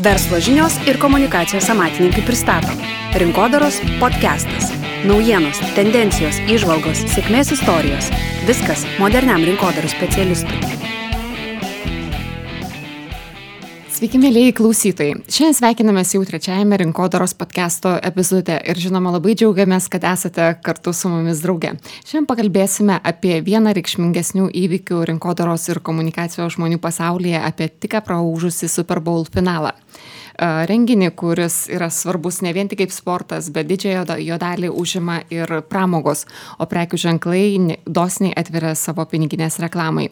Verslo žinios ir komunikacijos amatininkai pristato Rinkodaros podcastas. Naujienos, tendencijos, įžvalgos, sėkmės istorijos. Viskas moderniam rinkodaros specialistui. Sveiki, mėlėjai klausytojai. Šiandien sveikinamės jau trečiajame Rinkodaros podcasto epizode ir žinoma labai džiaugiamės, kad esate kartu su mumis drauge. Šiandien pakalbėsime apie vieną reikšmingesnių įvykių rinkodaros ir komunikacijos žmonių pasaulyje, apie tik praūžusį Super Bowl finalą. Renginį, kuris yra svarbus ne vien tik kaip sportas, bet didžiąją jo dalį užima ir pramogos, o prekių ženklai dosniai atveria savo piniginės reklamai.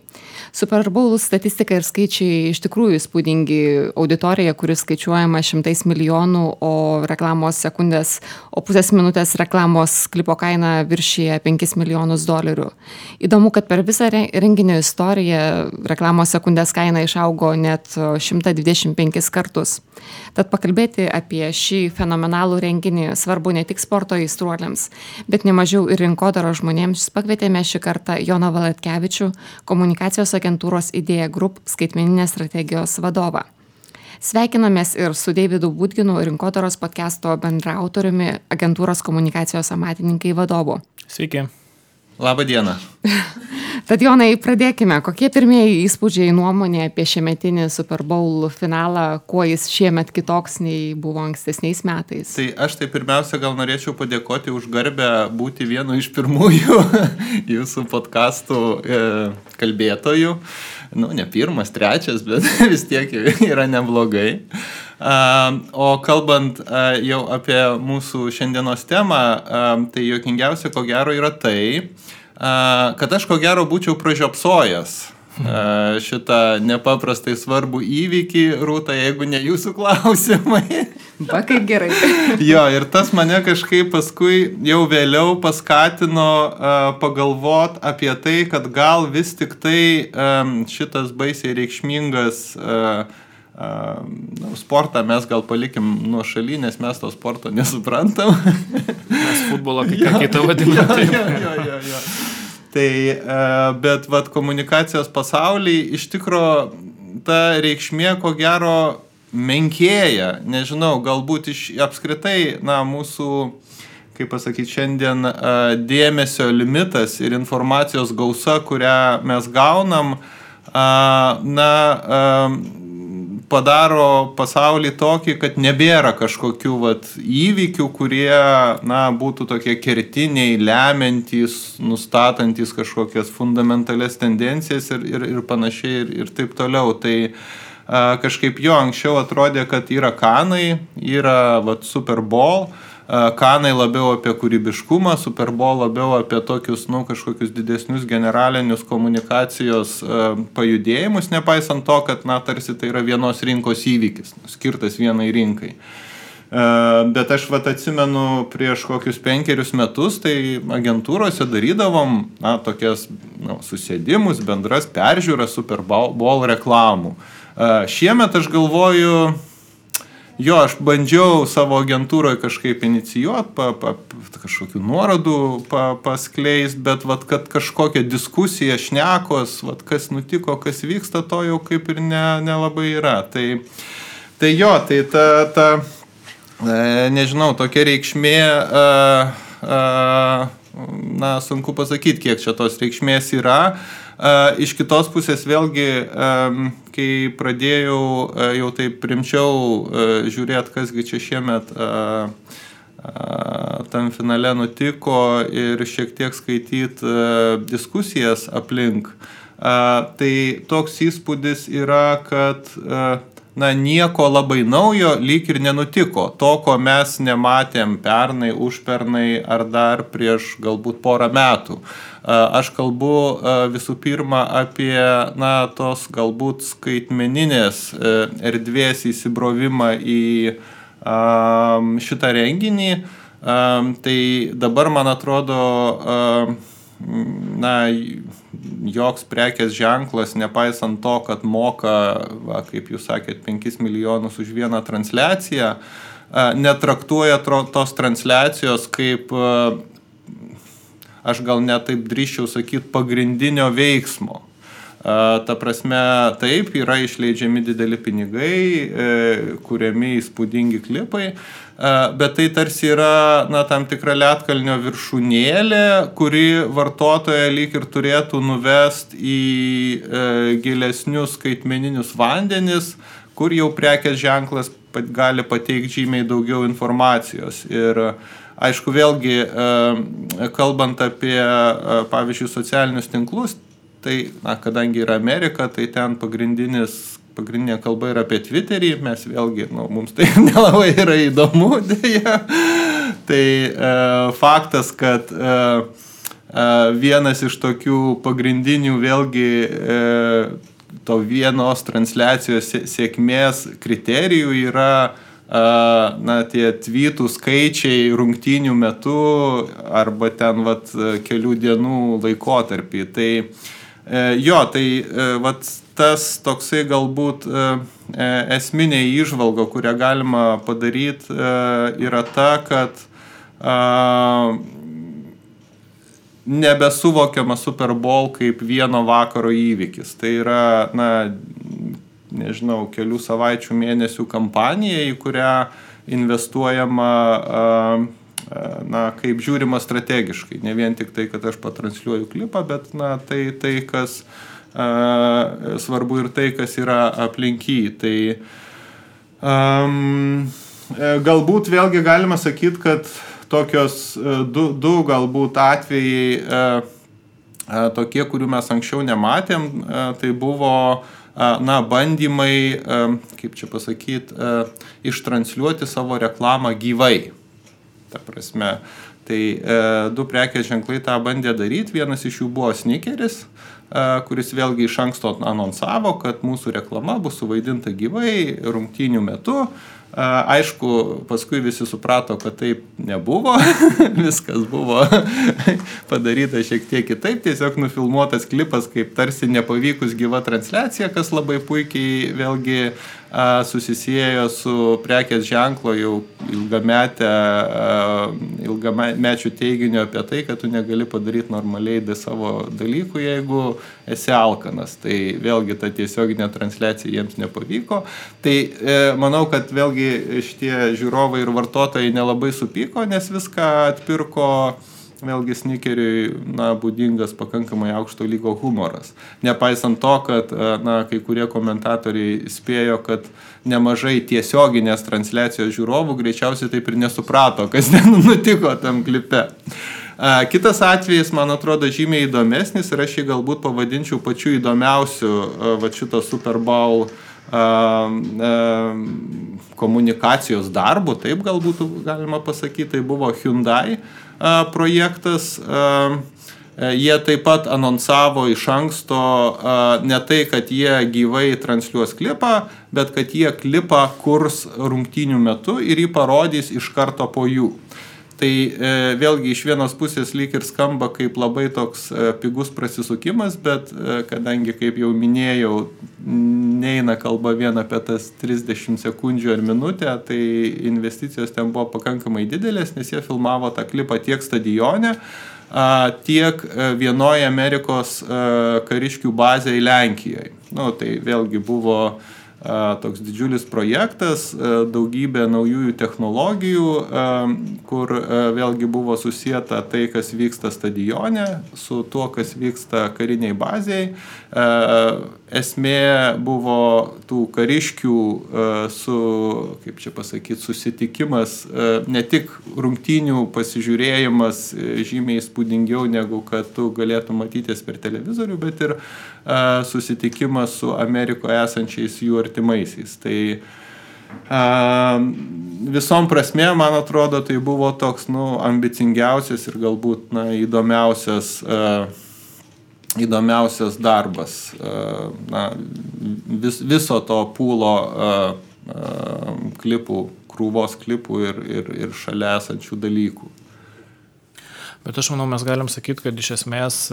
Super Bowl statistika ir skaičiai iš tikrųjų įspūdingi. Auditorija, kuris skaičiuojama 100 milijonų, o reklamos sekundės, o pusės minutės reklamos klipo kaina viršyje $5 milijonus. Įdomu, kad per visą renginio istoriją reklamos sekundės kaina išaugo net 125 kartus. Tad pakalbėti apie šį fenomenalų renginį svarbu ne tik sporto aistruoliams, bet nemažiau ir rinkodaros žmonėms. Pakvietėme šį kartą Joną Valatkevičių, komunikacijos agentūros Idea Group skaitmeninės strategijos vadovą. Sveikinamės ir su Deividu Budginu, Rinkodaros podcasto bendraautoriumi, agentūros komunikacijos amatininkai vadovu. Sveiki. Labą dieną. Tad Jonai, pradėkime. Kokie pirmieji įspūdžiai nuomonė apie šiemetinį Super Bowl finalą, kuo jis šiemet kitoks nei buvo ankstesniais metais? Tai aš pirmiausia gal norėčiau padėkoti už garbę būti vienu iš pirmųjų jūsų podcastų kalbėtojų. Ne pirmas, trečias, bet vis tiek yra neblogai. O kalbant jau apie mūsų šiandienos temą, tai juokingiausia ko gero yra tai, kad aš ko gero būčiau pražiopsojęs šitą nepaprastai svarbų įvykį, Rūta, jeigu ne jūsų klausimai. Va, kaip gerai. Jo, ir tas mane kažkaip paskui jau vėliau paskatino pagalvot apie tai, kad gal vis tik tai šitas baisiai reikšmingas sportą mes gal palikim nuo šaly, nes mes to sporto nesuprantam. Mes futbolą kai ką kitą vadinam. Jo. Tai, bet komunikacijos pasaulyje iš tikro ta reikšmė ko gero menkėja. Nežinau, galbūt apskritai mūsų, kaip pasakyti, šiandien dėmesio limitas ir informacijos gausa, kurią mes gaunam, padaro pasaulį tokį, kad nebėra kažkokių įvykių, kurie būtų tokie kertiniai, lemiantys, nustatantys kažkokias fundamentalias tendencijas ir panašiai ir taip toliau. Tai kažkaip anksčiau atrodė, kad yra Kanai, yra Super Bowl, Kanai labiau apie kūrybiškumą, Super Bowl labiau apie tokius, kažkokius didesnius generalinius komunikacijos pajudėjimus, nepaisant to, kad, tarsi tai yra vienos rinkos įvykis, skirtas vienai rinkai. Bet aš atsimenu prieš kokius 5 metus, tai agentūrose darydavom, tokias, susėdimus, bendras peržiūras Super Bowl reklamų. Šiemet aš galvoju, aš bandžiau savo agentūroje kažkaip inicijuoti, kažkokių nuorodų paskleist, bet kad kažkokia diskusija, šnekos, kas nutiko, kas vyksta, to jau kaip ir nelabai yra. Tai ta nežinau, tokia reikšmė, sunku pasakyti, kiek čia tos reikšmės yra. Iš kitos pusės vėlgi, kai pradėjau jau taip rimčiau žiūrėti, kasgi čia šiemet tam finale nutiko ir šiek tiek skaityti diskusijas aplink, tai toks įspūdis yra, kad nieko labai naujo lyg ir nenutiko. To, ko mes nematėm pernai, užpernai ar dar prieš galbūt porą metų. Aš kalbu visų pirma apie tos galbūt skaitmeninės erdvės įsibrovimą į šitą renginį. Tai dabar, man atrodo, joks prekės ženklas, nepaisant to, kad moka, kaip jūs sakėt, 5 milijonus už vieną transliaciją, netraktuoja tos transliacijos kaip, aš gal net taip drįsčiau sakyti, pagrindinio veiksmo. Ta prasme, taip, yra išleidžiami dideli pinigai, kuriami įspūdingi klipai, bet tai tarsi yra tam tikra ledkalnio viršūnėlė, kuri vartotoją lyg ir turėtų nuvest į gilesnius skaitmeninius vandenis, kur jau prekės ženklas gali pateikti žymiai daugiau informacijos. Ir aišku, vėlgi, kalbant apie, pavyzdžiui, socialinius tinklus, tai, kadangi yra Amerika, tai ten pagrindinė kalba yra apie Twitterį, mes vėlgi, mums tai nelabai yra įdomu, dėja. Tai faktas, kad vienas iš tokių pagrindinių vėlgi to vienos transliacijos sėkmės kriterijų yra tie tweetų skaičiai rungtynių metu arba ten kelių dienų laikotarpį. Tai tai tas toksai galbūt esminė įžvalga, kurią galima padaryti, yra ta, kad nebesuvokiama Super Bowl kaip vieno vakaro įvykis. Tai yra, nežinau, kelių savaičių, mėnesių kampanija, į kurią investuojama kaip žiūrima strategiškai. Ne vien tik tai, kad aš patransliuoju klipą, bet tai kas svarbu ir tai, kas yra aplinky. Tai galbūt vėlgi galima sakyti, kad tokios du galbūt atvejai tokie, kurių mes anksčiau nematėm, tai buvo bandymai, kaip čia pasakyti, ištransliuoti savo reklamą gyvai. Ta prasme, tai du prekės ženklai tą bandė daryti. Vienas iš jų buvo Snickeris, kuris vėlgi iš anksto anonsavo, kad mūsų reklama bus suvaidinta gyvai rungtynių metu. Aišku, paskui visi suprato, kad taip nebuvo, viskas buvo padaryta šiek tiek kitaip, tiesiog nufilmuotas klipas kaip tarsi nepavykus gyva transliacija, kas labai puikiai vėlgi susisiejo su prekės ženklo jau ilgamečių teiginiu apie tai, kad tu negali padaryti normaliai savo dalykų, jeigu esi alkanas. Tai vėlgi ta tiesioginė transliacija jiems nepavyko. Tai manau, kad vėlgi šitie žiūrovai ir vartotojai nelabai supyko, nes viską atpirko vėlgi Snickeriui būdingas pakankamai aukšto lygio humoras. Nepaisant to, kad kai kurie komentatoriai spėjo, kad nemažai tiesioginės transliacijos žiūrovų greičiausiai taip ir nesuprato, kas nutiko tam klipe. Kitas atvejis, man atrodo, žymiai įdomesnis ir aš jį galbūt pavadinčiau pačiu įdomiausiu šito Super Bowl komunikacijos darbu, taip galbūt galima pasakyti, tai buvo Hyundai projektas. Jie taip pat anonsavo iš anksto ne tai, kad jie gyvai transliuos klipą, bet kad jie klipą kurs rungtynių metu ir jį parodys iš karto po jų. Tai vėlgi iš vienos pusės lyg ir skamba kaip labai toks pigus prasisukimas, bet kadangi, kaip jau minėjau, neina kalba vien apie tas 30 sekundžių ar minutę, tai investicijos ten buvo pakankamai didelės, nes jie filmavo tą klipą tiek stadione, tiek vienoje Amerikos kariškių bazėje Lenkijoje. Tai vėlgi buvo toks didžiulis projektas, daugybė naujųjų technologijų, kur vėlgi buvo susieta tai, kas vyksta stadione, su tuo, kas vyksta kariniai bazėje. Esmė buvo tų kariškių kaip čia pasakyti, susitikimas, ne tik rungtynių pasižiūrėjimas žymiai įspūdingiau, negu kad tu galėtum matytis per televizorių, bet ir susitikimas su Amerikoje esančiais jų artimaisiais. Tai visom prasmėm, man atrodo, tai buvo toks ambicingiausias ir galbūt įdomiausias darbas viso to pūlo klipų, krūvos klipų ir šalia esančių dalykų. Bet aš manau, mes galim sakyti, kad iš esmės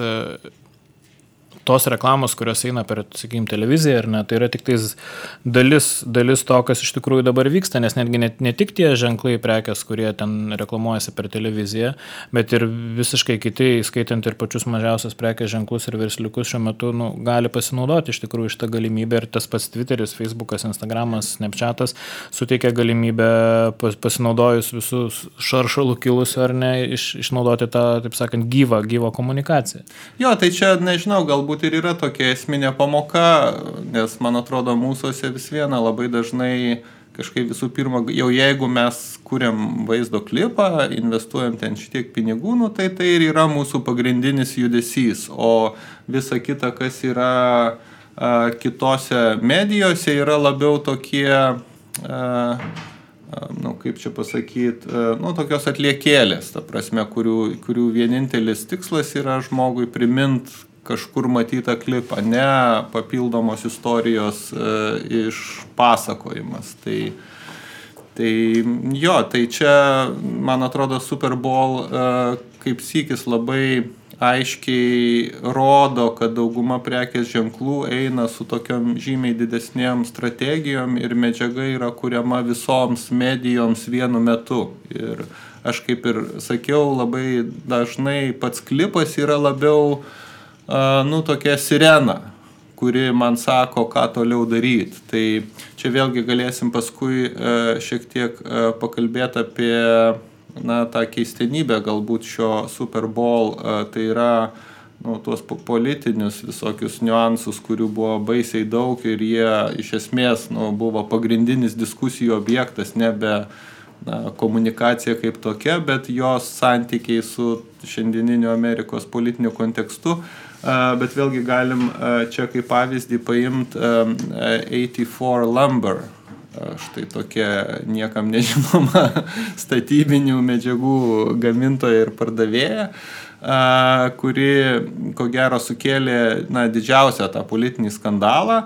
tos reklamos, kurios eina per, sakykime, televiziją, ar ne, tai yra tik tais dalis to, kas iš tikrųjų dabar vyksta, nes netgi ne tik tie ženklai prekės, kurie ten reklamuojasi per televiziją, bet ir visiškai kiti, skaitant ir pačius mažiausias prekės ženklus ir versliukus šiuo metu gali pasinaudoti iš tikrųjų šitą galimybę, ir tas pats Twitteris, Facebookas, Instagramas, Snapchatas suteikia galimybę pasinaudojus visus šaršalų kilusių ar ne, išnaudoti tą, taip sakant, gyvą komunikaciją. Jo, tai čia, nežinau, galbūt ir yra tokia esminė pamoka, nes, man atrodo, mūsųse vis viena labai dažnai kažkaip visų pirma, jau jeigu mes kuriam vaizdo klipą, investuojam ten šitiek pinigų, tai ir yra mūsų pagrindinis judesys, o visa kita, kas yra kitose medijose, yra labiau tokie kaip čia pasakyti, tokios atliekėlės, ta prasme, kurių vienintelis tikslas yra žmogui primint kažkur matytą klipą, ne papildomos istorijos išpasakojimas. Tai čia, man atrodo, Super Bowl kaip sykis labai aiškiai rodo, kad dauguma prekės ženklų eina su tokiom žymiai didesnėm strategijom ir medžiaga yra kuriama visoms medijoms vienu metu. Ir aš kaip ir sakiau, labai dažnai pats klipas yra labiau tokia sirena, kuri man sako, ką toliau daryti. Tai čia vėlgi galėsim paskui šiek tiek pakalbėti apie tą keistenybę galbūt šio Super Bowl, tai yra tuos politinius visokius niuansus, kurių buvo baisiai daug ir jie iš esmės buvo pagrindinis diskusijų objektas, nebe komunikacija kaip tokia, bet jos santykiai su šiandieniniu Amerikos politiniu kontekstu. Bet vėlgi galim čia kaip pavyzdį paimti 84 Lumber. Štai tokia niekam nežinoma statybinių medžiagų gamintoja ir pardavėja, kuri, ko gero, sukėlė didžiausią tą politinį skandalą.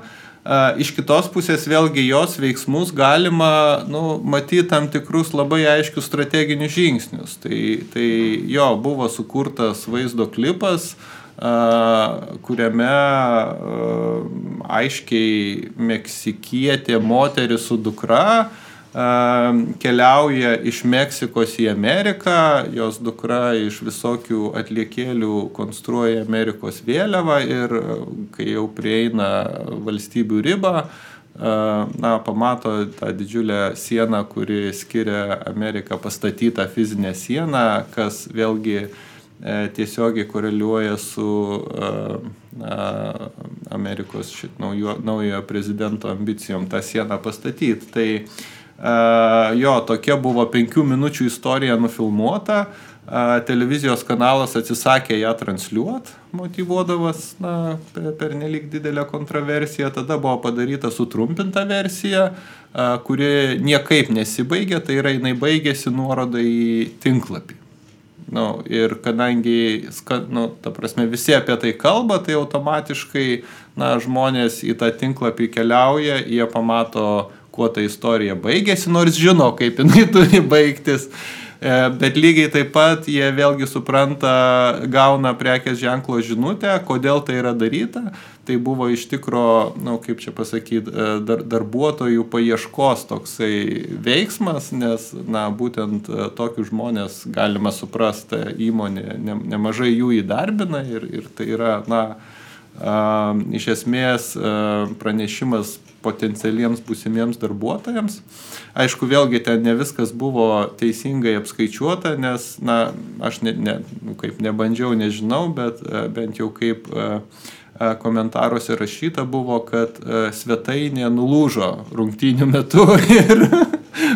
Iš kitos pusės vėlgi jos veiksmus galima matyti tam tikrus labai aiškius strateginius žingsnius. Tai jo buvo sukurtas vaizdo klipas, kuriame aiškiai meksikietė moteris su dukra keliauja iš Meksikos į Ameriką, jos dukra iš visokių atliekėlių konstruoja Amerikos vėliavą ir kai jau prieina valstybių ribą, pamato tą didžiulę sieną, kuri skiria Ameriką, pastatytą fizinę sieną, kas vėlgi tiesiogiai koreliuoja su Amerikos naujojo prezidento ambicijom tą sieną pastatyti. Tai tokia buvo 5 minučių istorija nufilmuota, televizijos kanalas atsisakė ją transliuoti, motyvuodamas per nelik didelę kontroversiją, tada buvo padaryta sutrumpinta versija, kuri niekaip nesibaigė, tai yra jinai baigėsi nuoroda į tinklapį. Ir kadangi, ta prasme, visi apie tai kalba, tai automatiškai žmonės į tą tinklapį keliauja, jie pamato, kuo ta istorija baigėsi, nors žino, kaip jinai turi baigtis. Bet lygiai taip pat jie vėlgi supranta, gauna prekės ženklo žinutę, kodėl tai yra daryta. Tai buvo iš tikro, kaip čia pasakyti, darbuotojų paieškos toksai veiksmas, nes būtent tokius žmonės galima suprasti, įmonė nemažai jų įdarbina ir tai yra, iš esmės pranešimas potencialiems būsimiems darbuotojams. Aišku, vėlgi ten ne viskas buvo teisingai apskaičiuota, nes, aš kaip nebandžiau, nežinau, bet bent jau kaip komentaruose rašyta buvo, kad svetainė nulūžo rungtynių metu ir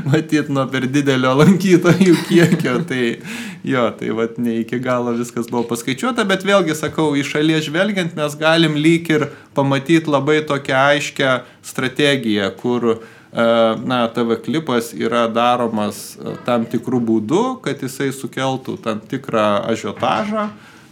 matyt nuo per didelio lankytojų kiekio. Tai vat ne iki galo viskas buvo paskaičiuota, bet vėlgi sakau, iš šalies žvelgiant mes galim lyg ir pamatyti labai tokią aiškę strategiją, kur TV klipas yra daromas tam tikrų būdų, kad jisai sukeltų tam tikrą ažiotažą.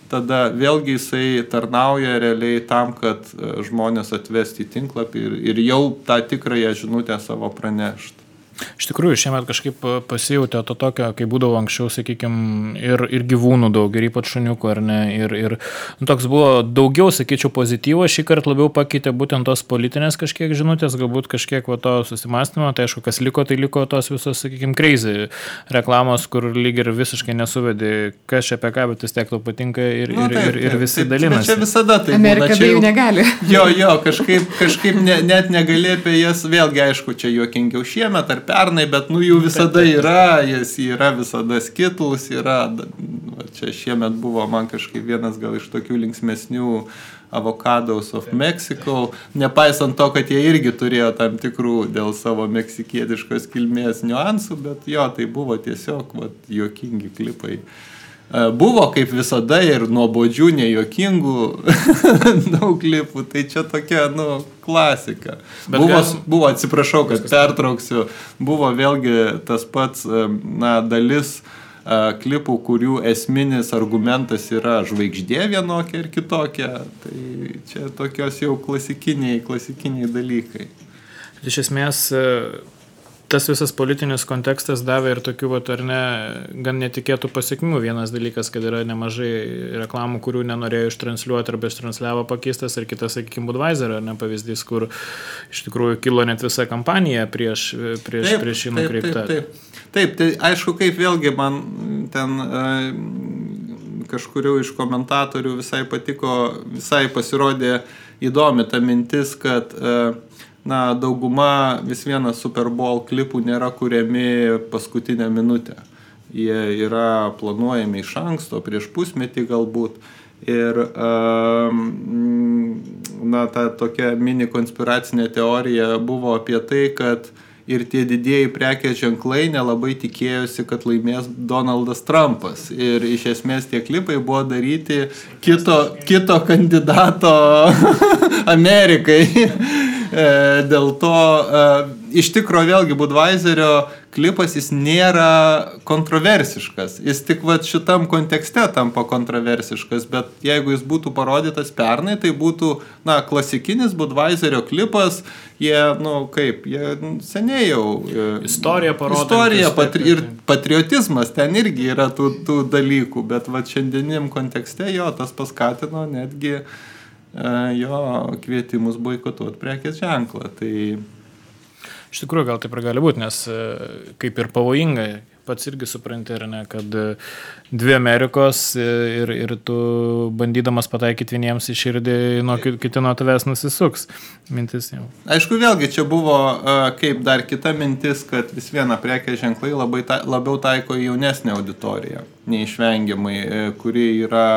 Tada vėlgi jisai tarnauja realiai tam, kad žmonės atvesti į tinklapį ir jau tą tikrąją žinutę savo pranešti. Iš tikrųjų, šiemet kažkaip pasijautė to tokio, kai būdavo anksčiau, sakykime, ir gyvūnų daug, ir ypač šuniukų, ar ne, ir toks buvo daugiau, sakyčiau, pozityvo, šį kartą labiau pakeitė būtent tos politinės kažkiek žinutės, galbūt kažkiek to susimastymo, tai aišku, kas liko, tai liko tos visos, sakykime, crazy reklamos, kur lyg ir visiškai nesuvedė, kas čia apie ką, bet vis tiek tau patinka ir visi dalinasi. Čia visada tai Amerika be jų negali. Jo, kažkaip net negali apie jas, vėlgi aišku, čia juokingiau šiemet ar pernai, bet jų visada yra, jis yra visada Skittles, yra, čia šiemet buvo man kažkaip vienas gal iš tokių linksmesnių Avocados of Mexico, nepaisant to, kad jie irgi turėjo tam tikrų dėl savo meksikietiškos kilmės niuansų, bet jo, tai buvo tiesiog juokingi klipai. Buvo kaip visada ir nuobodžių, nejuokingų daug klipų, tai čia tokia, klasika. Buvo, atsiprašau, kad pertrauksiu, buvo vėlgi tas pats, dalis klipų, kurių esminis argumentas yra žvaigždė vienokia ir kitokia, tai čia tokios jau klasikiniai dalykai. Iš esmės, tas visas politinis kontekstas davė ir tokių, ar ne, gan netikėtų pasiekmių. Vienas dalykas, kad yra nemažai reklamų, kurių nenorėjo ištransliuoti arba ištransliavo pakeistas, ir kitas, sakykime, Budweiser, ar ne, pavyzdys, kur iš tikrųjų kilo net visa kampanija prieš jį nukreiptą. Taip, tai aišku, kaip vėlgi man ten kažkurių iš komentatorių visai patiko, visai pasirodė įdomi ta mintis, kad dauguma vis vienas Super Bowl klipų nėra kuriami paskutinę minutę. Jie yra planuojami iš anksto, prieš pusmetį galbūt. Ir ta tokia mini konspiracinė teorija buvo apie tai, kad ir tie didieji prekės ženklai nelabai tikėjosi, kad laimės Donaldas Trumpas. Ir iš esmės tie klipai buvo daryti kito kandidato Amerikai. Dėl to, iš tikro vėlgi Budweiserio klipas jis nėra kontroversiškas. Jis tik šitam kontekste tampa kontroversiškas, bet jeigu jis būtų parodytas pernai, tai būtų, klasikinis Budweiserio klipas, jie seniai jau... Istorija parodo. Ir patriotizmas ten irgi yra tų dalykų, bet šiandieniam kontekste jo tas paskatino netgi jo kvietimus boikotuoti prekės ženklą. Tai... Iš tikrųjų, gal taip ir gali būti, nes kaip ir pavojingai, pats irgi supranti, ar ne, kad dvi Amerikos ir tu bandydamas pataikyti vieniems į širdį, kiti nuo tavęs nusisuks. Mintis jau. Aišku, vėlgi čia buvo kaip dar kita mintis, kad vis viena prekės ženklai labiau taiko jaunesnę auditoriją, neišvengiamai, kuri yra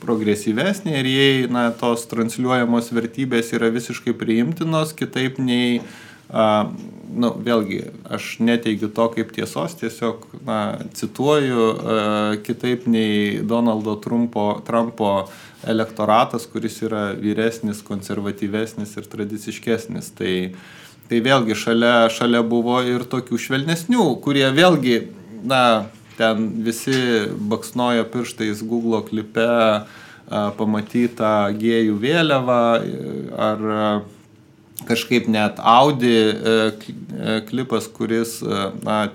progresyvesnė ir jei tos transliuojamos vertybės yra visiškai priimtinos, kitaip nei, vėlgi, aš neteigiu to kaip tiesos, tiesiog cituoju, kitaip nei Donaldo Trumpo elektoratas, kuris yra vyresnis, konservatyvesnis ir tradiciškesnis. Tai vėlgi šalia buvo ir tokių švelnesnių, kurie vėlgi, ten visi baksnojo pirštais Google klipe pamatytą gėjų vėliavą ar kažkaip net Audi klipas, kuris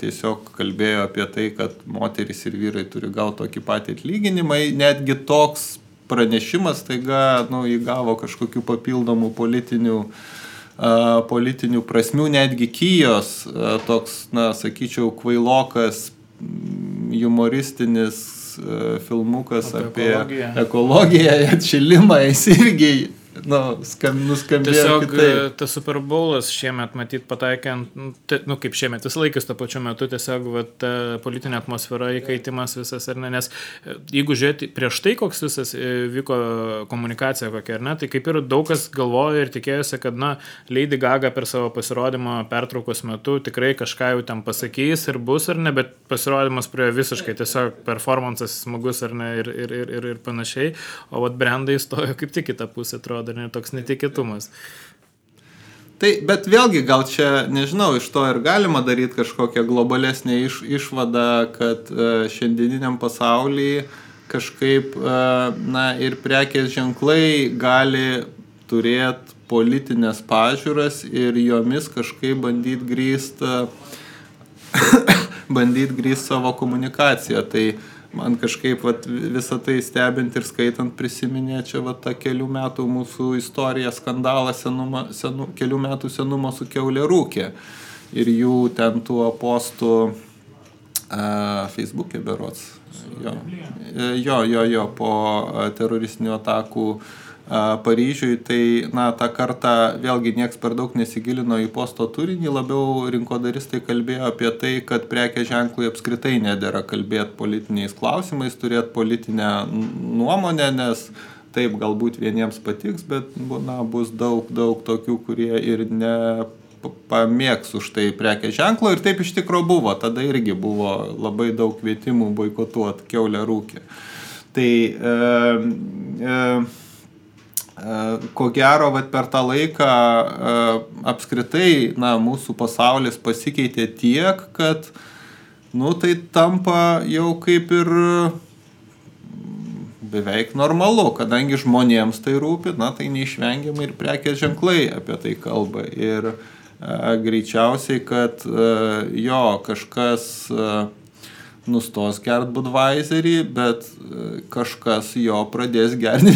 tiesiog kalbėjo apie tai, kad moterys ir vyrai turi gauti tokį patį atlyginimą. Netgi toks pranešimas taiga įgavo kažkokių papildomų politinių prasmių, netgi Kijos toks, sakyčiau, kvailokas humoristinis filmukas apie ekologiją, atšilimą, jis irgi nuskambėjo tiesiog kitaip. Tas Super Bowlas šiemet matyt pataikė, kaip šiemet, vis laikas to pačiu metu, tiesiog ta politinė atmosfera, įkaitimas visas, ar ne, nes jeigu žiūrėti prieš tai, koks visas vyko komunikacija kokia, ar ne, tai kaip ir daug kas galvojo ir tikėjosi, kad, Lady Gaga per savo pasirodymą pertraukos metu tikrai kažką jau ten pasakys ir bus, ar ne, bet pasirodymas prie visiškai tiesiog performances smagus, ar ne, ir panašiai, o brandai stojo kaip tik kitą pusę, atrodo, toks netikėtumas. Tai, bet vėlgi gal čia, nežinau, iš to ir galima daryti kažkokią globalesnę išvadą, kad šiandieniniam pasaulyje kažkaip, ir prekės ženklai gali turėti politinės pažiūras ir jomis kažkaip bandyti grįsti bandyti grįsti savo komunikaciją. Tai man kažkaip visą tai stebint ir skaitant prisiminė čia tą kelių metų mūsų istoriją, skandalą kelių metų senumo su kiaulė ir jų ten tų postų Facebook'e berods. Jo, po teroristinių atakų Paryžiui, tai, tą kartą vėlgi nieks per daug nesigilino į posto turinį, labiau rinkodaristai kalbėjo apie tai, kad prekės ženklui apskritai nedera kalbėti politiniais klausimais, turėti politinę nuomonę, nes taip galbūt vieniems patiks, bet bus daug tokių, kurie ir nepamėgs už tai prekės ženklo ir taip iš tikro buvo, tada irgi buvo labai daug kvietimų boikotuoti kiaulę rūkę. Tai ko gero, per tą laiką apskritai mūsų pasaulis pasikeitė tiek, kad tai tampa jau kaip ir beveik normalu, kadangi žmonėms tai rūpi, tai neišvengiamai ir prekės ženklai apie tai kalba. Ir greičiausiai, kad kažkas nustos gert Budweiserį, bet kažkas jo pradės gerti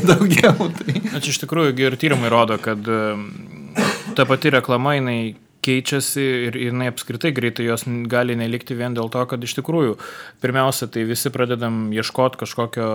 daugiau. Tai. Čia iš tikrųjų ir tyrimai rodo, kad ta pati reklama, jinai keičiasi ir jinai apskritai greitai jos gali nelikti vien dėl to, kad iš tikrųjų pirmiausia, tai visi pradedam ieškoti kažkokio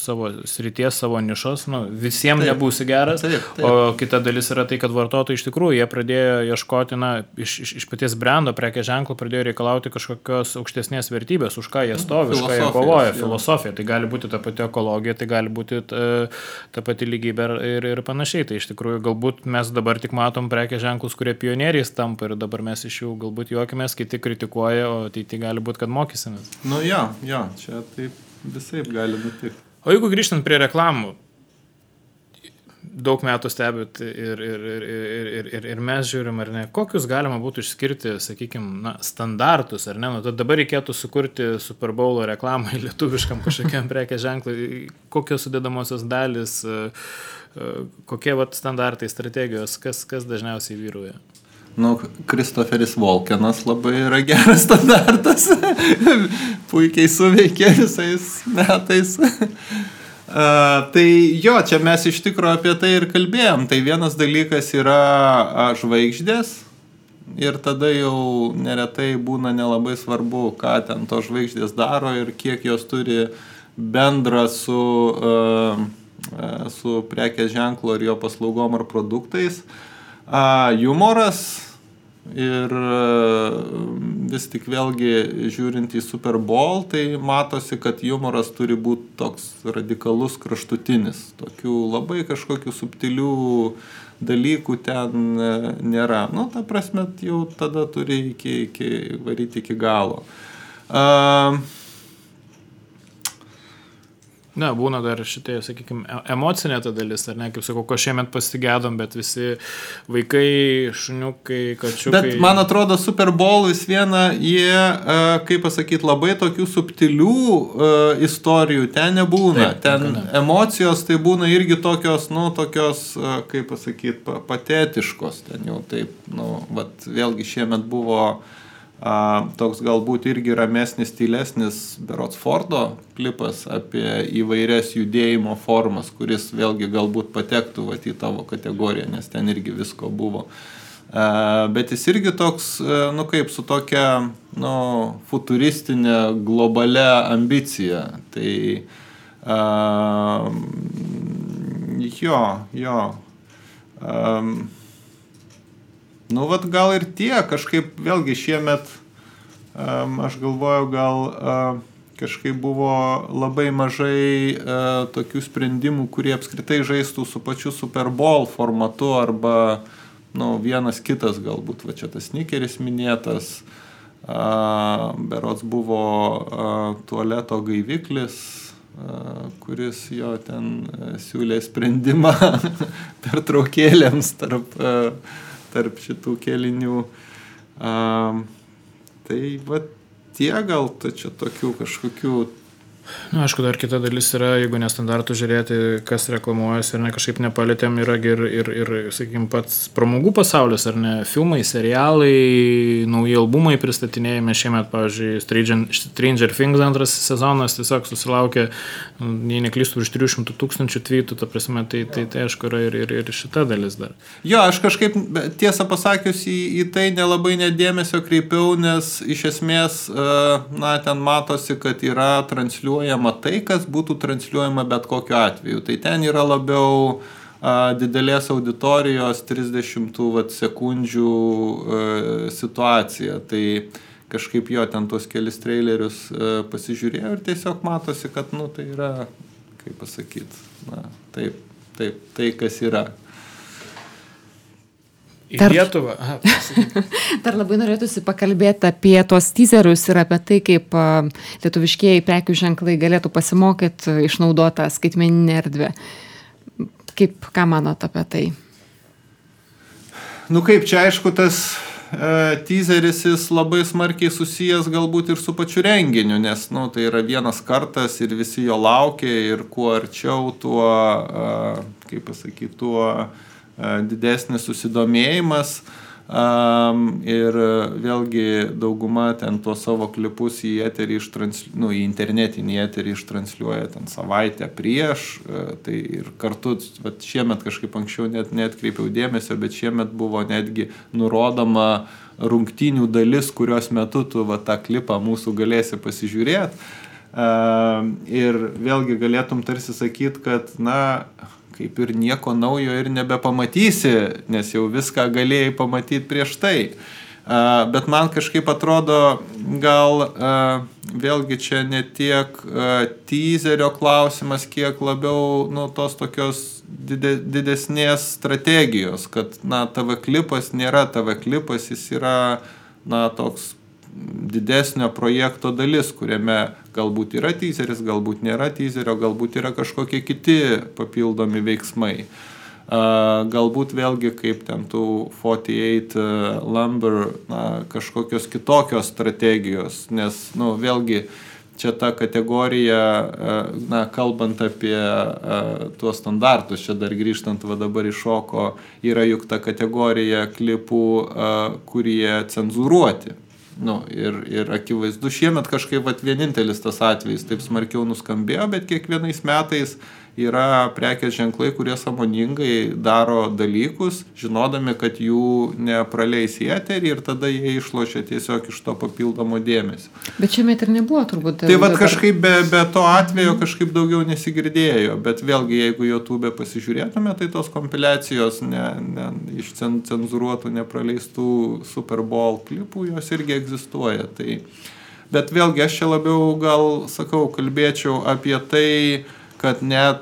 savo srities, savo nišos, visiems nebūsi geras, taip. O kita dalis yra tai, kad vartotojai iš tikrųjų jie pradėjo ieškoti, iš paties brando, prekės ženklų pradėjo reikalauti kažkokios aukštesnės vertybės, už ką jie stovi, už ką jie kovoja, filosofija, tai gali būti ta pati ekologija, tai gali būti ta pati lygybė ir panašiai, tai iš tikrųjų galbūt mes dabar tik matom prekės ženklus, kurie pionieriais tampa ir dabar mes iš jų galbūt juokimės, kiti kritikuoja, o tai gali būti, kad mokysimės. Jo, čia taip visaip gali būti. O jeigu grįžtant prie reklamų, daug metų stebit ir mes žiūrim, ar ne, kokius galima būtų išskirti, sakykime, standartus, ar ne, tad dabar reikėtų sukurti Super Bowlo reklamą lietuviškam kažkokiam prekės ženklui, kokios sudedamosios dalis, kokie standartai, strategijos, kas dažniausiai vyrauja? Kristoferis Walkenas labai yra geras standartas, puikiai suveikė visais metais. Tai čia mes iš tikro apie tai ir kalbėjom. Tai vienas dalykas yra žvaigždės ir tada jau neretai būna nelabai svarbu, ką ten to žvaigždės daro ir kiek jos turi bendra su prekės ženklo ir jo paslaugom ar produktais. Jumoras ir vis tik vėlgi žiūrint į Super Bowl, tai matosi, kad jumoras turi būti toks radikalus, kraštutinis. Tokių labai kažkokių subtilių dalykų ten nėra. Ta prasme, jau tada turi varyti iki galo. Būna dar šitai, sakykime, emocinė ta dalis, ar ne, kaip sakau, ko šiemet pasigėdom, bet visi vaikai, šuniukai, kačiukai. Bet man atrodo, Super Bowl vis viena, jie, kaip pasakyti, labai tokių subtilių istorijų ten nebūna. Taip, ten emocijos tai būna irgi tokios, kaip pasakyti, patetiškos. Ten jau taip, vėlgi šiemet buvo toks galbūt irgi ramesnis, tylesnis berods Fordo klipas apie įvairias judėjimo formas, kuris vėlgi galbūt patektų į tavo kategoriją, nes ten irgi visko buvo. Bet jis irgi toks, kaip su tokia, futuristinė, globalia ambicija. Tai gal ir tie, kažkaip vėlgi šiemet, aš galvoju, gal kažkaip buvo labai mažai tokių sprendimų, kurie apskritai žaistų su pačiu Super Bowl formatu arba vienas kitas galbūt, čia tas sneakeris minėtas, berods buvo tualeto gaiviklis, kuris jo ten siūlė sprendimą pertraukėlėms tarp šitų kelinių. Tai tie gal čia tokių kažkokių Aišku, dar kita dalis yra, jeigu nestandartų žiūrėti, kas reklamuojasi ir ne kažkaip nepalėtėm, yra ir sakykime, pats pramogų pasaulis, ar ne, filmai, serialai, nauji albumai pristatinėjami šiemet, pavyzdžiui, Stranger Things 2 sezonas tiesiog susilaukė, jei neklystu, virš 300 000 tweetų, ta prasme, tai aišku yra ir šita dalis dar. Jo, aš kažkaip tiesą pasakius į tai nelabai nedėmesio kreipiau, nes iš esmės, ten matosi, kad yra transliuojama tai, kas būtų transliuojama bet kokiu atveju. Tai ten yra labiau didelės auditorijos 30 sekundžių situacija. Tai kažkaip jo ten tos kelis trailerius pasižiūrėjau ir tiesiog matosi, kad tai yra, kaip pasakyti, tai kas yra. Į Lietuvą. Dar labai norėtųsi pakalbėti apie tos teaserius ir apie tai, kaip lietuviškieji prekių ženklai galėtų pasimokyti išnaudotą skaitmeninę erdvę. Ką manot apie tai? Kaip čia aišku, tas teaseris jis labai smarkiai susijęs galbūt ir su pačiu renginiu, nes tai yra vienas kartas ir visi jo laukia ir kuo arčiau, tuo, tuo didesnis susidomėjimas ir vėlgi dauguma ten tuos savo klipus į eterį į internetinį eterį ištransliuoja ten savaitę prieš, tai ir kartu šiemet kažkaip anksčiau neatkreipiau dėmesio, bet šiemet buvo netgi nurodoma rungtynių dalis, kurios metu tu tą klipą mūsų galėsi pasižiūrėti ir vėlgi galėtum tarsi sakyti, kad kaip ir nieko naujo ir nebepamatysi, nes jau viską galėjai pamatyti prieš tai. Bet man kažkaip atrodo, gal vėlgi čia ne tiek teaserio klausimas, kiek labiau tos tokios didesnės strategijos, kad TV klipas nėra TV klipas, jis yra toks didesnio projekto dalis, kuriame galbūt yra teaseris, galbūt nėra teaserio, galbūt yra kažkokie kiti papildomi veiksmai. Galbūt vėlgi kaip ten tų 48 Lumber kažkokios kitokios strategijos, nes vėlgi čia ta kategorija, kalbant apie tuos standartus, čia dar grįžtant dabar iššoko, yra juk ta kategorija klipų, kurie cenzūruoti. Ir akivaizdu, šiemet kažkaip vienintelis tas atvejis taip smarkiau nuskambėjo, bet kiekvienais metais yra prekės ženklai, kurie sąmoningai daro dalykus, žinodami, kad jų nepraleis į eterį ir tada jie išlošia tiesiog iš to papildomo dėmesio. Bet šiemet ir nebuvo turbūt. Tai kažkaip be to atvejo kažkaip daugiau nesigirdėjo, bet vėlgi jeigu YouTube pasižiūrėtume, tai tos kompiliacijos iš cenzūruotų, nepraleistų Super Bowl klipų, jos irgi egzistuoja. Bet vėlgi aš čia labiau kalbėčiau apie tai, kad net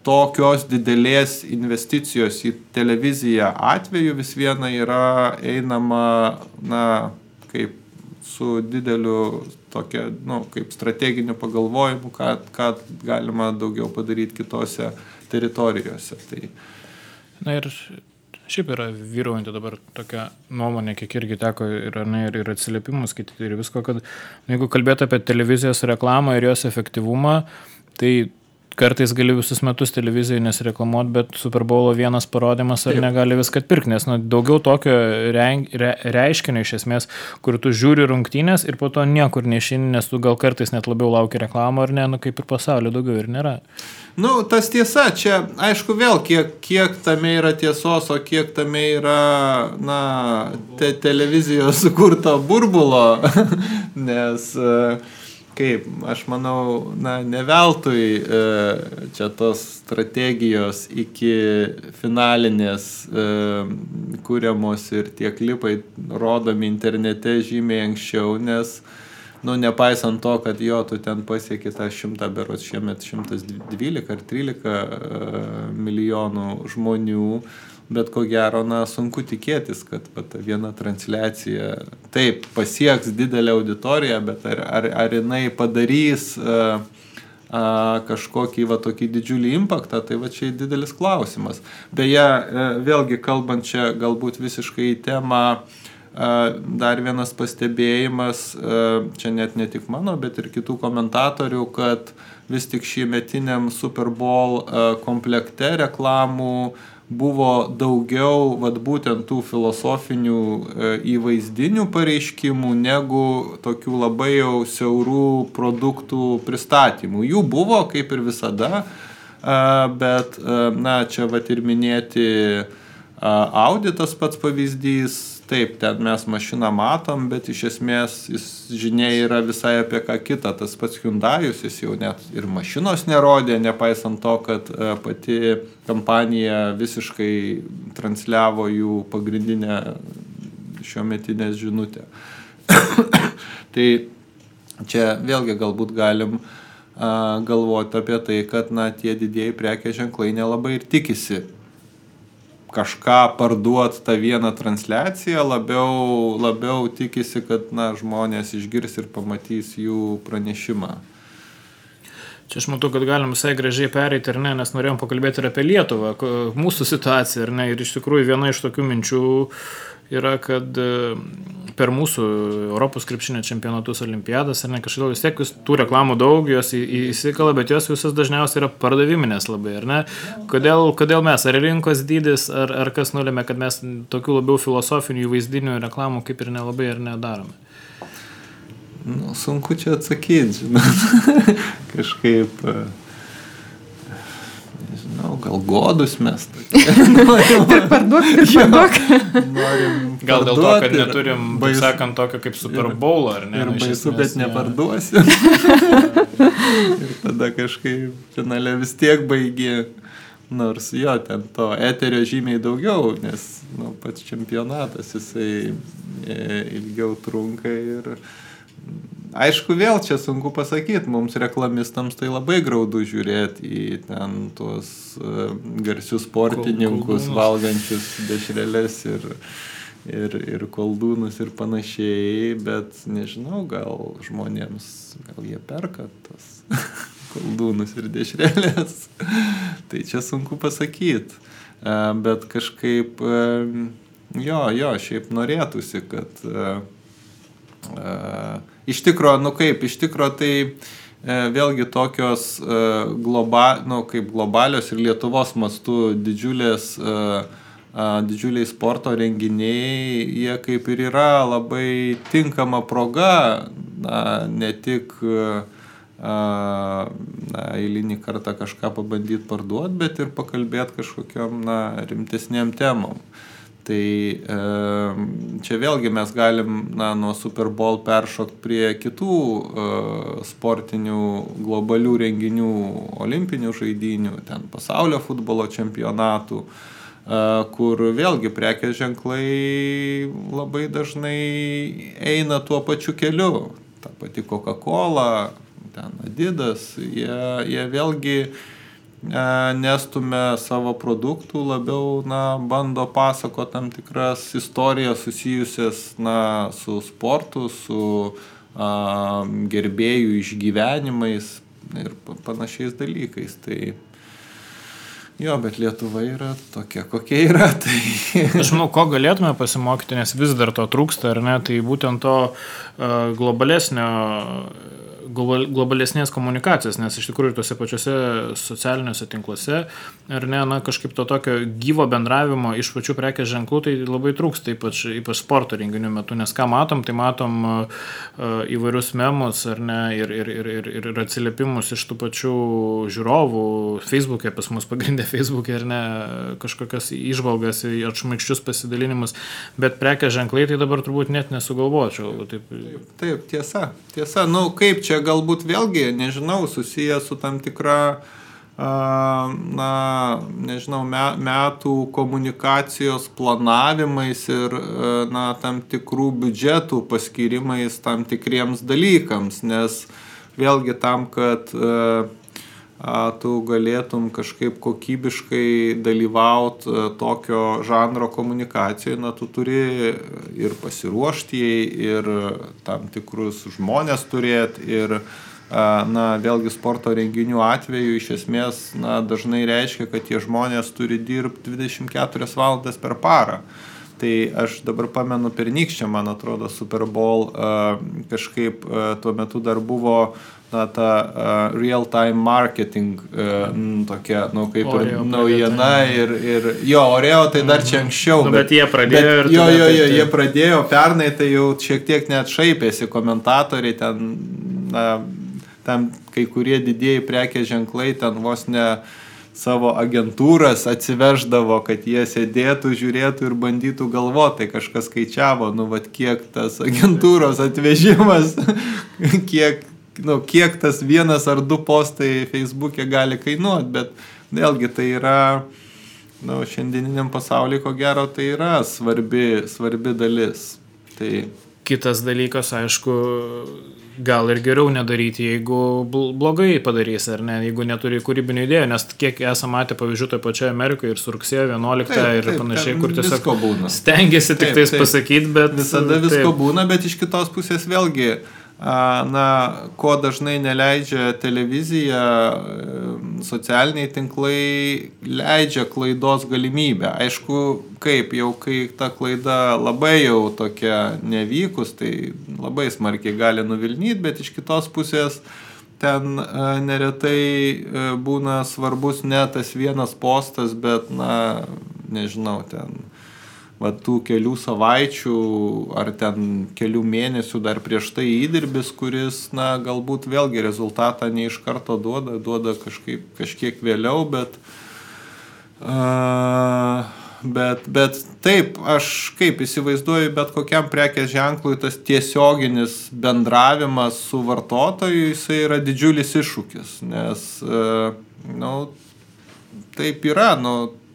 tokios didelės investicijos į televiziją atveju vis viena yra einama, kaip su dideliu tokia, kaip strateginiu pagalvojimu, ką galima daugiau padaryti kitose teritorijose. Ir šiaip yra vyraujanti dabar tokia nuomonė, kiek irgi teko ir atsiliepimus skaityti ir visko, kad jeigu kalbėtų apie televizijos reklamą ir jos efektyvumą, tai kartais gali visus metus televizijoje nesireklamuoti, bet Super Bowlo vienas parodymas ar negali viską atpirkti, nes daugiau tokio reiškinio iš esmės, kur tu žiūri rungtynės ir po to niekur neišeini, nes tu gal kartais net labiau lauki reklamą ar ne, kaip ir pasaulio daugiau ir nėra. Tas tiesa, čia aišku vėl, kiek tame yra tiesos, o kiek tame yra, televizijos sukurto burbulo, nes kaip, aš manau, ne veltui čia tos strategijos iki finalinės kuriamos ir tie klipai rodomi internete žymiai anksčiau, nes nepaisant to, kad tu ten pasieki tą 100, berods šiemet 112 ar 13 milijonų žmonių, bet ko gero, sunku tikėtis, kad ta viena transliacija taip pasieks didelę auditoriją, bet ar jinai padarys kažkokį tokį didžiulį impaktą, tai čia didelis klausimas. Beje, vėlgi kalbant čia galbūt visiškai į temą, dar vienas pastebėjimas, čia net ne tik mano, bet ir kitų komentatorių, kad vis tik šiemetiniam Super Bowl komplekte reklamų buvo daugiau vat būtent tų filosofinių įvaizdinių pareiškimų negu tokių labai jau siaurų produktų pristatymų. Jų buvo kaip ir visada, bet na, čia vat ir minėti Audi tas pats pavyzdys. Taip, ten mes mašiną matom, bet iš esmės žinia yra visai apie ką kitą. Tas pats Hyundai'us, jis jau net ir mašinos nerodė, nepaisant to, kad pati kompanija visiškai transliavo jų pagrindinę šiometinę žinutę. Tai čia vėlgi galbūt galim galvoti apie tai, kad na, tie didieji prekės ženklai nelabai ir tikisi kažką parduoti tą vieną transliaciją, labiau tikisi, kad na, žmonės išgirs ir pamatys jų pranešimą. Čia aš matau, kad galim visai gražiai pereiti, ar ne, nes norėjom pakalbėti ir apie Lietuvą, mūsų situaciją, ar ne, ir iš tikrųjų viena iš tokių minčių yra, kad per mūsų Europos krepšinio čempionatus, olimpiadas, ar ne, kažkaip vis tiek tų reklamų daug, jos įsikala, bet jos visas dažniausiai yra pardaviminės labai, ar ne? Kodėl mes, ar rinkos dydis, ar kas nulėmė, kad mes tokių labiau filosofinių įvaizdinių reklamų kaip ir nelabai ar nedarome? Nu, sunku čia atsakyti, žinot. Kažkaip, nežinau, gal godus mes. Ir parduok. Gal dėl to, kad neturim, taip sakant, tokio kaip Super Bowl, ar ne? Ir baisu, bet neparduosi. Ir tada kažkaip finale vis tiek baigi. Nors jo, ten to eterio žymiai daugiau, nes nu, pats čempionatas jisai ilgiau trunka ir aišku, vėl čia sunku pasakyti, mums reklamistams tai labai graudu žiūrėti į ten tuos garsius sportininkus, valgančius dešreles ir koldūnus ir panašiai, bet nežinau, gal žmonėms, gal jie perka tos koldūnus ir dešrelės, tai čia sunku pasakyti, bet kažkaip, šiaip norėtųsi, kad iš tikro tai vėlgi tokios kaip globalios ir Lietuvos mastu didžiuliai sporto renginiai, jie kaip ir yra labai tinkama proga, ne tik eilinį kartą kažką pabandyti parduoti, bet ir pakalbėti kažkokiam rimtesniam temom. Tai čia vėlgi mes galim nuo Super Bowl peršokti prie kitų sportinių globalių renginių, olimpinių žaidynių, ten pasaulio futbolo čempionatų, kur vėlgi prekės ženklai labai dažnai eina tuo pačiu keliu. Ta pati Coca-Cola, ten Adidas, jie vėlgi nestumia savo produktų, labiau bando pasakoti tam tikras istorijas susijusias su sportu, su gerbėjų išgyvenimais ir panašiais dalykais. Tai jo, bet Lietuva yra tokia, kokia yra. Tai aš manau, ko galėtume pasimokyti, nes vis dar to trūksta, ar ne, tai būtent to globalesnės komunikacijos, nes iš tikrųjų tose pačiose socialiniuose tinkluose, ar ne, kažkaip to tokio gyvo bendravimo iš pačių prekės ženklų, tai labai trūksta, ypač sporto renginių metu, nes ką matom, tai matom įvairius memus, ar ne, ir atsiliepimus iš tų pačių žiūrovų, Facebook'e, pas mus pagrindė Facebook'e, ar ne, kažkokias įžvalgas, atšmaikščius pasidalinimus, bet prekės ženklai tai dabar turbūt net nesugalvočiau. Taip, tiesa. Nu, kaip čia galbūt vėlgi, nežinau, susiję su tam tikra, metų komunikacijos planavimais ir, tam tikrų biudžetų paskirimais tam tikriems dalykams, nes vėlgi tam, kad tu galėtum kažkaip kokybiškai dalyvauti tokio žanro komunikacijoje, tu turi ir pasiruošti, ir tam tikrus žmonės turėti, ir vėlgi sporto renginių atveju iš esmės dažnai reiškia, kad tie žmonės turi dirbti 24 valandas per parą. Tai aš dabar pamenu pernykščią, man atrodo, Super Bowl kažkaip tuo metu dar buvo ta real-time marketing tokia, kaip ir naujiena ir jo, Oreo tai dar čia anksčiau. Bet jie pradėjo jie pradėjo pernai, tai jau šiek tiek net šaipėsi komentatoriai, ten kai kurie didieji prekės ženklai ten vos ne savo agentūras atsiveždavo, kad jie sėdėtų, žiūrėtų ir bandytų galvoti, tai kažkas skaičiavo, kiek tas agentūros atvežimas, kiek tas 1 ar 2 postai Facebook'e gali kainuoti, bet vėlgi tai yra, šiandieniniam pasaulyje, ko gero, tai yra svarbi dalis. Tai kitas dalykas, aišku, gal ir geriau nedaryti, jeigu blogai padarys, ar ne, jeigu neturi kūrybinių idėjų, nes kiek esame matę pavyzdžių toje pačioje Amerikoje ir su rugsėjo 11 ir panašiai, kur tiesiog stengiasi tik tais pasakyti, bet visada visko būna, bet iš kitos pusės vėlgi, ko dažnai neleidžia televizija, socialiniai tinklai leidžia klaidos galimybę. Aišku, kai ta klaida labai jau tokia nevykus, tai labai smarkiai gali nuvilnyti, bet iš kitos pusės ten neretai būna svarbus ne tas vienas postas, bet, nežinau, ten tų kelių savaičių ar ten kelių mėnesių dar prieš tai įdirbis, kuris, galbūt vėlgi rezultatą ne iš karto duoda kažkiek vėliau, bet taip, aš kaip įsivaizduoju, bet kokiam prekės ženklui tas tiesioginis bendravimas su vartotoju, jisai yra didžiulis iššūkis, nes, taip yra,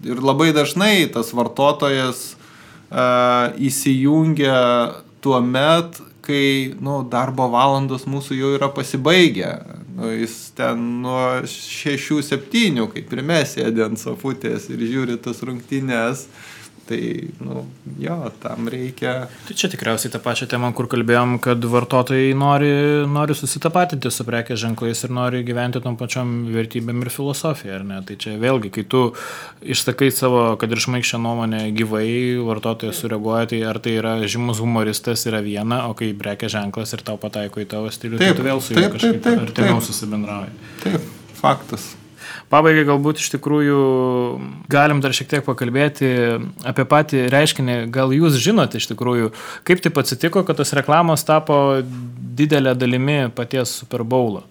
ir labai dažnai tas vartotojas įsijungia tuo met, kai darbo valandos mūsų jau yra pasibaigę. Jis ten nuo 6-7, kaip ir mes sėdė ant sofutės ir žiūri tas rungtynes. Tai, tam reikia. Tai čia tikriausiai tą pačią temą, kur kalbėjom, kad vartotojai nori susitapatinti su prekės ženklais ir nori gyventi tom pačiom vertybėm ir filosofija, ar ne? Tai čia vėlgi, kai tu išsakai savo, kad ir šmaikščią nuomonę gyvai, vartotojas sureaguoja, tai ar tai yra žymus humoristas yra viena, o kai prekės ženklas ir tau pataiko į tavo stilių, tai tu vėl su juo kažkaip artimiau susibendrauji. Taip, faktas. Pabaigai galbūt iš tikrųjų galim dar šiek tiek pakalbėti apie patį reiškinį. Gal jūs žinote iš tikrųjų, kaip taip atsitiko, kad tos reklamos tapo didelė dalimi paties Super Bowlo?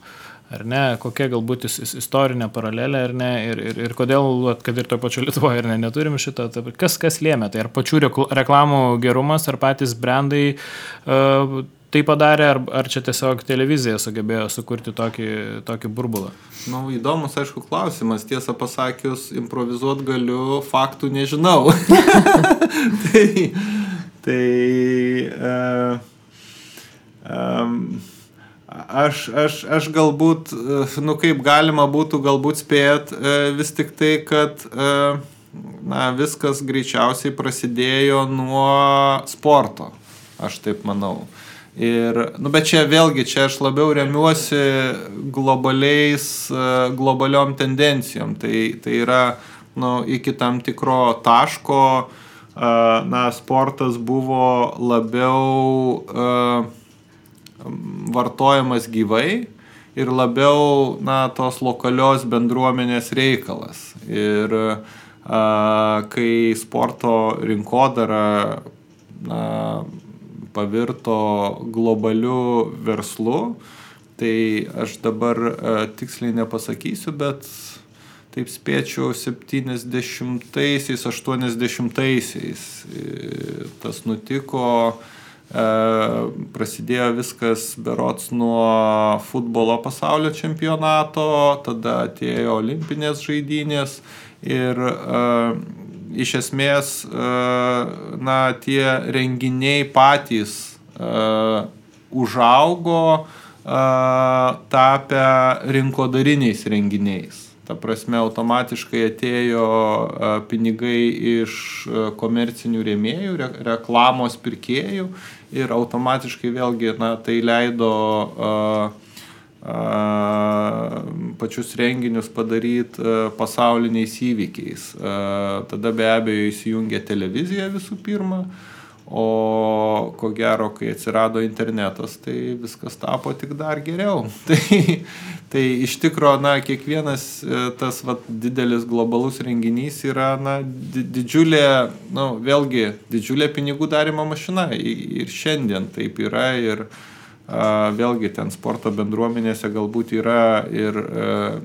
Ar ne? Kokia galbūt istorinė paralelė, ar ne? Ir kodėl, kad ir to pačiu Lietuvoje, ar ne, neturim šito? Kas lėmė? Tai ar pačių reklamų gerumas, ar patys brandai tai padarė, ar čia tiesiog televizija sugebėjo sukurti tokį burbulą? Įdomus, aišku, klausimas. Tiesą pasakius, improvizuot galiu, faktų nežinau. Aš galbūt, kaip galima būtų galbūt spėt, vis tik tai, kad viskas greičiausiai prasidėjo nuo sporto. Aš taip manau. Bet čia vėlgi, čia aš labiau remiuosi globaliom tendencijom. Tai yra, iki tam tikro taško, sportas buvo labiau vartojamas gyvai ir labiau, tos lokalios bendruomenės reikalas. Ir kai sporto rinkodara, pavirto globaliu verslu, tai aš dabar tiksliai nepasakysiu, bet taip spėčiau 70-aisiais, 80-aisiais tas nutiko, prasidėjo viskas berods nuo futbolo pasaulio čempionato, tada atėjo olimpinės žaidynės ir iš esmės, tie renginiai patys užaugo, tapę rinkodariniais renginiais. Ta prasme, automatiškai atėjo pinigai iš komercinių rėmėjų, reklamos pirkėjų ir automatiškai vėlgi tai leido pačius renginius padaryti pasauliniais įvykiais. Tada be abejo įsijungia televizija visų pirma, o ko gero, kai atsirado internetas, tai viskas tapo tik dar geriau. Tai iš tikro, kiekvienas tas didelis globalus renginys yra didžiulė, vėlgi, didžiulė pinigų darymo mašina. Ir šiandien taip yra ir vėlgi ten sporto bendruomenėse galbūt yra ir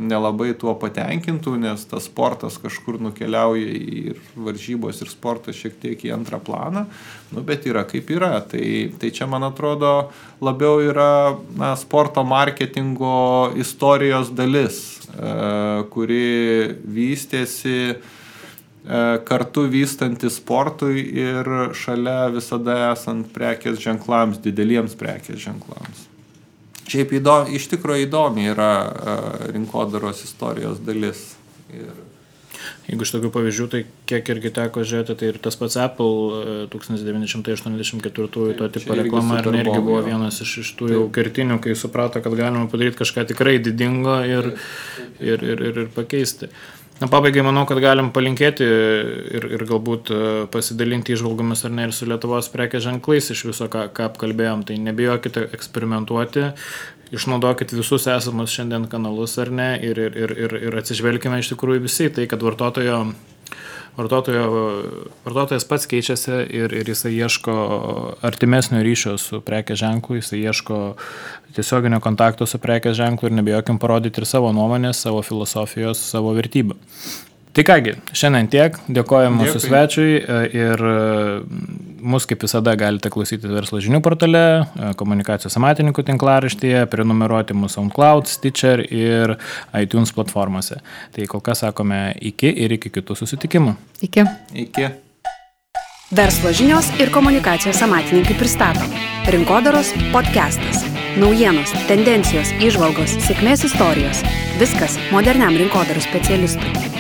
nelabai tuo patenkintų, nes tas sportas kažkur nukeliauja ir varžybos ir sportas šiek tiek į antrą planą, bet yra kaip yra. Tai čia, man atrodo, labiau yra sporto marketingo istorijos dalis, kuri vystėsi kartu vystantis sportui ir šalia visada esant prekės ženklams, dideliems prekės ženklams. Šiaip iš tikrųjų įdomi yra rinkodaros istorijos dalis. Jeigu iš tokių pavyzdžių, tai kiek irgi teko žiūrėti, tai ir tas pats Apple 1984 to tipo reklama irgi buvo vienas iš tų jau kertinių, kai suprato, kad galima padaryti kažką tikrai didingo ir pakeisti. Pabaigai manau, kad galim palinkėti ir galbūt pasidalinti įžvalgomis ar ne ir su Lietuvos prekės ženklais iš viso, ką apkalbėjom. Tai nebijokite eksperimentuoti, išnaudokit visus esamus šiandien kanalus ar ne ir atsižvelkime iš tikrųjų visi tai, kad vartotojas pats keičiasi ir jisai ieško artimesnio ryšio su prekės ženklu, jisai ieško tiesioginio kontakto su prekės ženklu ir nebijokim parodyti ir savo nuomonės, savo filosofijos, savo vertybių. Tai kągi, šiandien tiek, dėkojame mūsų svečiui ir mus kaip visada galite klausyti Verslo žinių portale, Komunikacijos amatininkų tinklaraštyje, prenumeruoti mūsų SoundCloud, Stitcher ir iTunes platformose. Tai kol kas sakome iki ir iki kitų susitikimų. Iki. Verslo žinios ir Komunikacijos amatininkai pristato Rinkodaros podcastas. Naujienos, tendencijos, įžvalgos, sėkmės istorijos. Viskas moderniam rinkodaros specialistui.